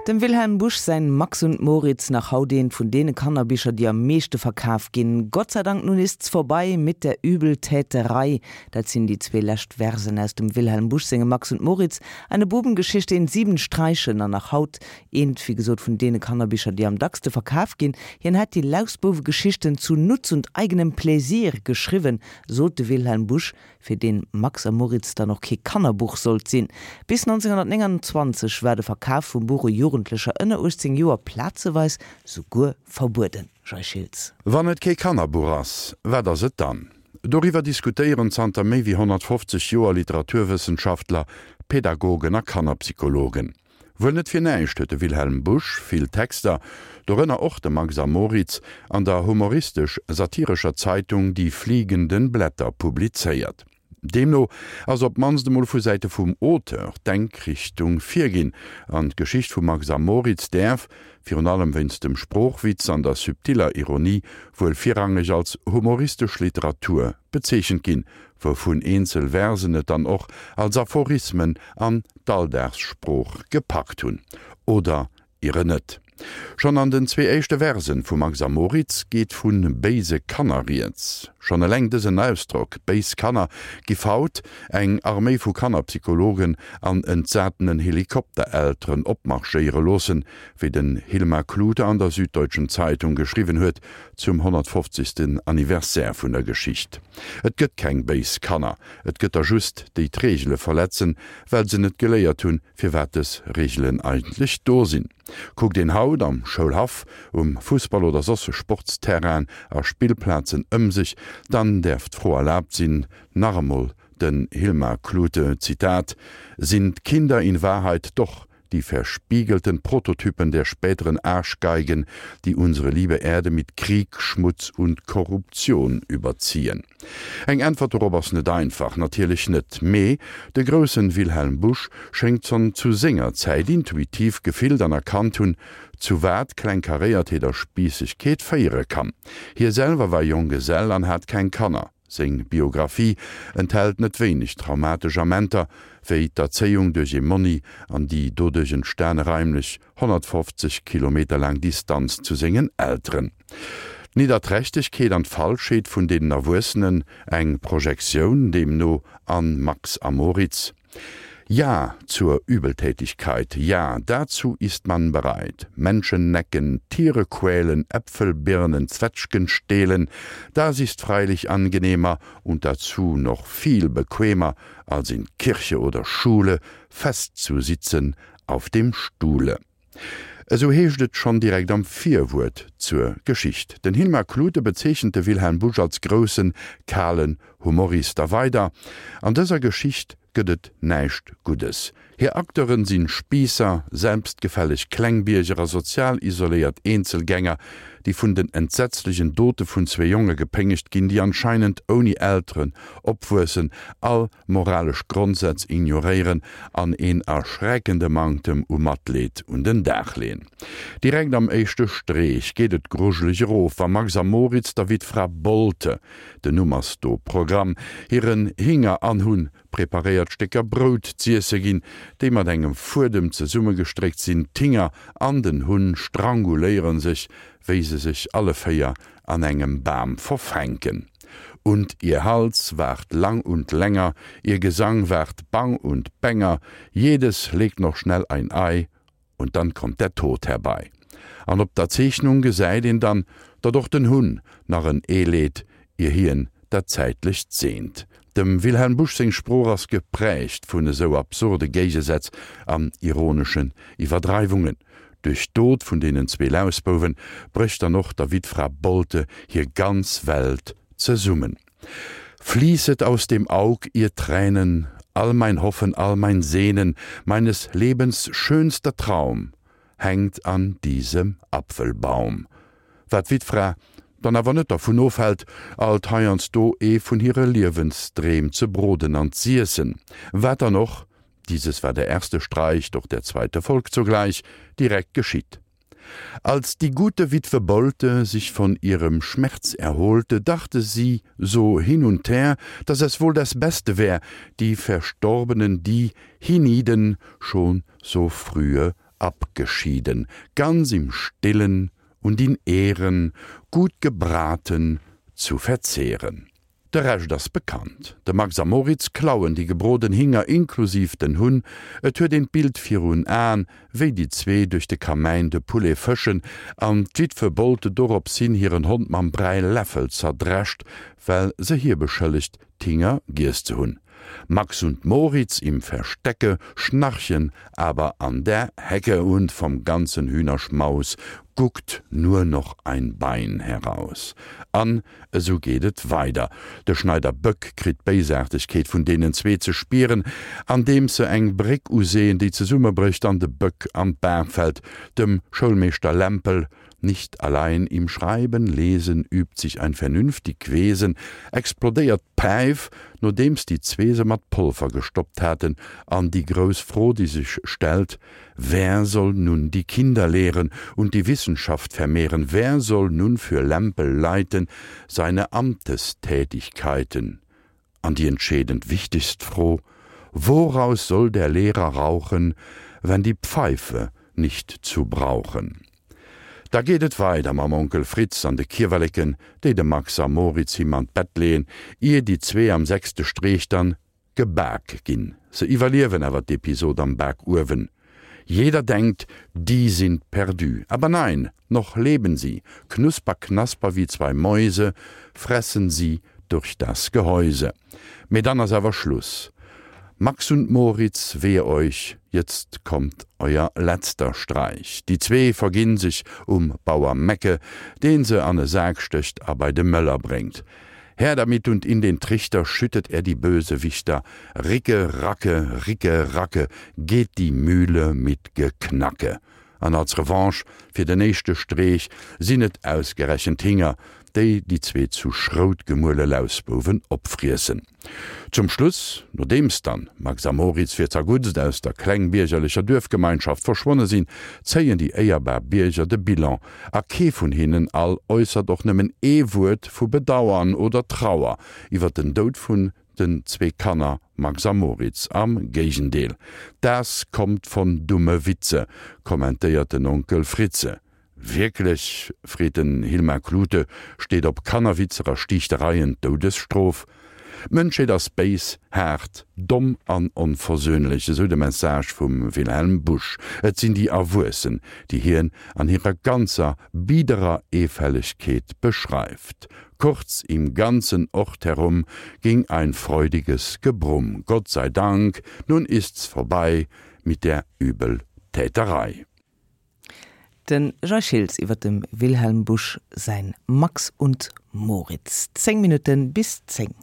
Dem Wilhelm Busch säin Max und Moritz, nach haut eent vun deene Kannerbicher, déi am meeschte verkaf ginn. Gott sei Dank, nun ist's vorbei mit der Übeltäterei. Dat sinn déi zwee lescht Versen aus dem Wilhelm Busch sengem Max und Moritz, eine Bubengeschichte in sieben Streichen an nach haut eent, wéi gesot, vun deene Kannerbicher, déi am dackste verkaf ginn. Hien hätt déi Lausbouwegeschichten zu Nutz und eigenem Pläsier geschriwwen, sot de Wilhelm Busch. fir deen Max a Moritz dann och kee Kannerbuch sollt sinn. Bis 1929 war de Verkaf vum Buch u Jugendlecher ënner 18 Joer plazeweis souguer verbueden. Jay Schiltz. Wann et kee Kannerbuch ass, wat ass et dann? Doriwwer diskutéieren zanter méi wéi 150 Joer Literaturwëssenschaftler, Pädagogen a Kannerpsychologen. Wuel net fir näischt huet de Wilhelm Busch vill Texter, dorënner och de Max a Moritz, an der humoristesch-satirescher Zeitung Die fliegenden Blätter publizéiert. Deemno ass op d'mannst emol vu Säite vum Auteur d'Denkrichtung virginn, an d'Geschicht vum Max a Moritz däerf, virun allem wéinst dem Sproochwitz an der subtiller Ironie, wuel virrangeg als humoristesch Literatur bezeechent ginn, wouvun eenzel Versen et dann och als Aphorismen an d'Alldagssprooch gepackt hunn. Oder iere net. Schonn an den zwee éischte Versen vu Max a Moritz geet vu béise Kanner rieds. Schonn eleng dësen Ausdrock, béis Kanner, giff haut eng Arméi vu Kannerpsychologen an entsatenen Helikopterelteren opmarschéiere loossen, wéi den Hilmar Klute an der Süddeutschen Zeitung geschriwwen huet zum 150. Anniversaire vun der Geschicht. Et gëtt keng béis Kanner, et gëtt der just, déi d'Reegele verletzen, well se net geléiert hunn, firwat dës Reegelen eigentlech do sinn. Kuckt een haut am Schoulhaff, um Fussball oder soss Sportsterrainen a Spillplazen ëm sech, dann däerf d'Fro erlaabt sinn, nach emol den Hilmar Klute, Zitat, Sind Kinder in Wahrheit doch die verspiegelten Prototypen der späteren Arschgeigen, die unsere liebe Erde mit Krieg, Schmutz und Korruption überziehen? Eng Äntwert dorop ass net einfach, natierlech net, mee de groussen Wilhelm Busch schéngt schonn zu senger Zäit intuitiv gefillt an erkannt hunn, zu wat Klengkaréiertheet a Spiissegkeet féiere kann. Hie selwer war Jonggesell an hat keng Kanner. Seng Biographie enthält net wéineg traumatesch Amenter, wéi d'Erzéiung duerch ee Monni an déi doduerch entstane raimlech 150 Kilometer laang Distanz zu sengen Elteren. D'Nidderträchtegkeet an d'Falschheet vun deenen Erwuessenen, eng Projektioun deemno an Max a Moritz. Ja zur Übeltätigkeit, ja, dazu ist man bereit. Menschen necken, Tiere quälen, Äpfel, Birnen, Zwetschgen stehlen, das ist freilich angenehmer und dazu noch viel bequemer, als in Kirche oder Schule festzusitzen auf dem Stuhle. Esou heescht et schonn direkt am Virwuert zur Geschicht. Den Hilmar Klute bezeechent de Wilhelm Busch als groussen, kalen Humorist. A weider, An dëser Geschicht gëtt et näischt Guddes. Hir Acteuren sinn Spiisser, selbstgefälleg Klengbierger a sozial isoléiert Eenzelgänger, déi vun den entsetzlechen Dote vun zwee Jonge gepéngegt ginn, déi anscheinend ouni Elteren opwuessen, all moralesch Grondsätz ignoréieren an een erschreckende Manktem u Matleed un den Dag leeën. Direkt am éischte Streech geet et grujeleg erof, wa Max a Moritz der Wittfra Bolte, den Numm ass do Programm, hiren Hinger an Hunn preparéiert Stécker Brout z'iesse ginn, déi mat engem Fuedem zesummegestréckt sinn. D'Hinger an den Hunn stranguléiere sech, wéi se sech alle 4 an engem Bam verfänken. Und ihr Hals ward lang und länger, ihr Gesang ward bang und bänger, jedes legt noch schnell ein Ei, und dann kommt der Tod herbei. An op der Zeechnung gesäit een dann, datt och den Hunn nach en Ee leet, ier hien dat Zäitlecht seent. Dem Wilhelm Busch seng Sprooch ass geprägt vun esou absurde Géigesätz an ironeschen Iwwerdreiwungen. Duerch d'Dot vun deenen zwee Lausbouwen brécht dann och der Wittfra Bolte hir ganz Welt zesummen. Fließet aus dem Aug ihr Tränen, all mein Hoffen, all mein Sehnen, meines Lebens schönster Traum hängt an diesem Apfelbaum. Wat d'Wittfra dann awer net dervun ofhält, alt heiansdo ee vun hire Liewensdreem ze broden an z'iessen. Wat dann och dieses war der erste Streich, doch der zweite folgt sogleich, direkt geschieht. Als die gute Witwe Bolte sich von ihrem Schmerz erholte, dachte sie so hin und her, dass es wohl das Beste wär, die Verstorbenen, die hienieden schon so frühe. abgeschieden, ganz im Stillen und in Ehren, gut gebraten zu verzehren. De Rescht ass bekannt, De Max a Moritz klauen déi gebroden Hinger inklusiv den Hunn. Et huet een d'Bild virun Aen, wéi déi zwee duerch de Kamäin de Poulet fëschen an d'Witwe Bolte dorops hin hiren Hond mam Bräiläffel zerdrescht, well se hie beschëllegt, d'Hinger giess ze hunn. Max und Moritz im Verstecke schnarchen aber an der Hecke und vom ganzen Hühnerschmaus guckt nur noch ein Bein heraus. An esou geet et weider. De Schneider Böck kritt d'Béisaartegkeet vun deenen zwee ze spieren, andeems se eng Bréck useeën, déi zesummebrécht an de Böck an d'Baach fält. Dem Schoulmeeschter Lämpel Nicht allein im Schreiben, Lesen übt sich ein vernünftig Wesen, explodéiert d'Päif, nodeems déi zwee se mat Polver gestoppt haten, an déi grouss Fro, déi sech stellt, Wer soll nun die Kinder lehren und die Wissenschaft vermehren, wer soll nun für Lämpel leiten seine Amtestätigkeiten? An déi entscheedend wichtegst Fro, Woraus soll der Lehrer rauchen, wenn die Pfeife nicht zu brauchen? Da geet et weider mam Onkel Fritz an de Kiewerleken, déi de Max a Moritz him an d'Bett leeën, ier déi zwee am sechste Streech dann gebak ginn. Se iwwerliewen awer d'Episod am Bakuewen. Jeder denkt, die sind perdu. Aber nein, noch leben sie. Knusper, knasper wie zwei Mäuse fressen sie durch das Gehäuse. Mee dann ass awer Schluss. Max und Moritz, wehe euch, jetzt kommt euer letzter Streich. Déi zwee verginn sech um Bauer Mecke, deen se an e Sak stécht a bei de Mëller bréngt. Her damit und in den Trichter schüttet er die Bösewichter, Ricke, Racke, Ricke, Racke, geht die Mühle mit Geknacke. An als Revanche fir den éischte Streech sinn et ausgerechent d'Hinger, déi déi zwee zu Schrout gemuele Lausbouwen opfriessen. Zum Schluss, nodeems dann Max a Moritz fir zerguttst aus der klengbiergerlecher Duerfgemeinschaft verschwonne sinn, zéien déi éierbar Bierger de Bilan a kee vun hinnen all äussert och nëmmen ee Wuert vu Bedauern oder Trauer iwwer den Doud vun den zwee Kanner Max a Moritz. Am Géigendeel, Das kommt von dumme Witze, kommentéiert den Onkel Fritze. Wierklech? freet den Hilmar Klute, steet op Kannerwitzer a Stiichtereien d'Doudesstrof? D'Mënschheet ass béis, haart, domm an onversöhnlech, esou de Message vum Wilhelm Busch. Et sinn déi Erwuessen, déi hien an hirer ganzer biederer Eefällegkeet beschreift. Kurz, im ganzen Ort herum ging ein freudiges Gebrumm. Gott sei Dank, nun ist's vorbei mit der Übeltäterei. De Jay Schiltz iwwer dem Wilhelm Busch säin Max und Moritz. 10 Minutte bis 10.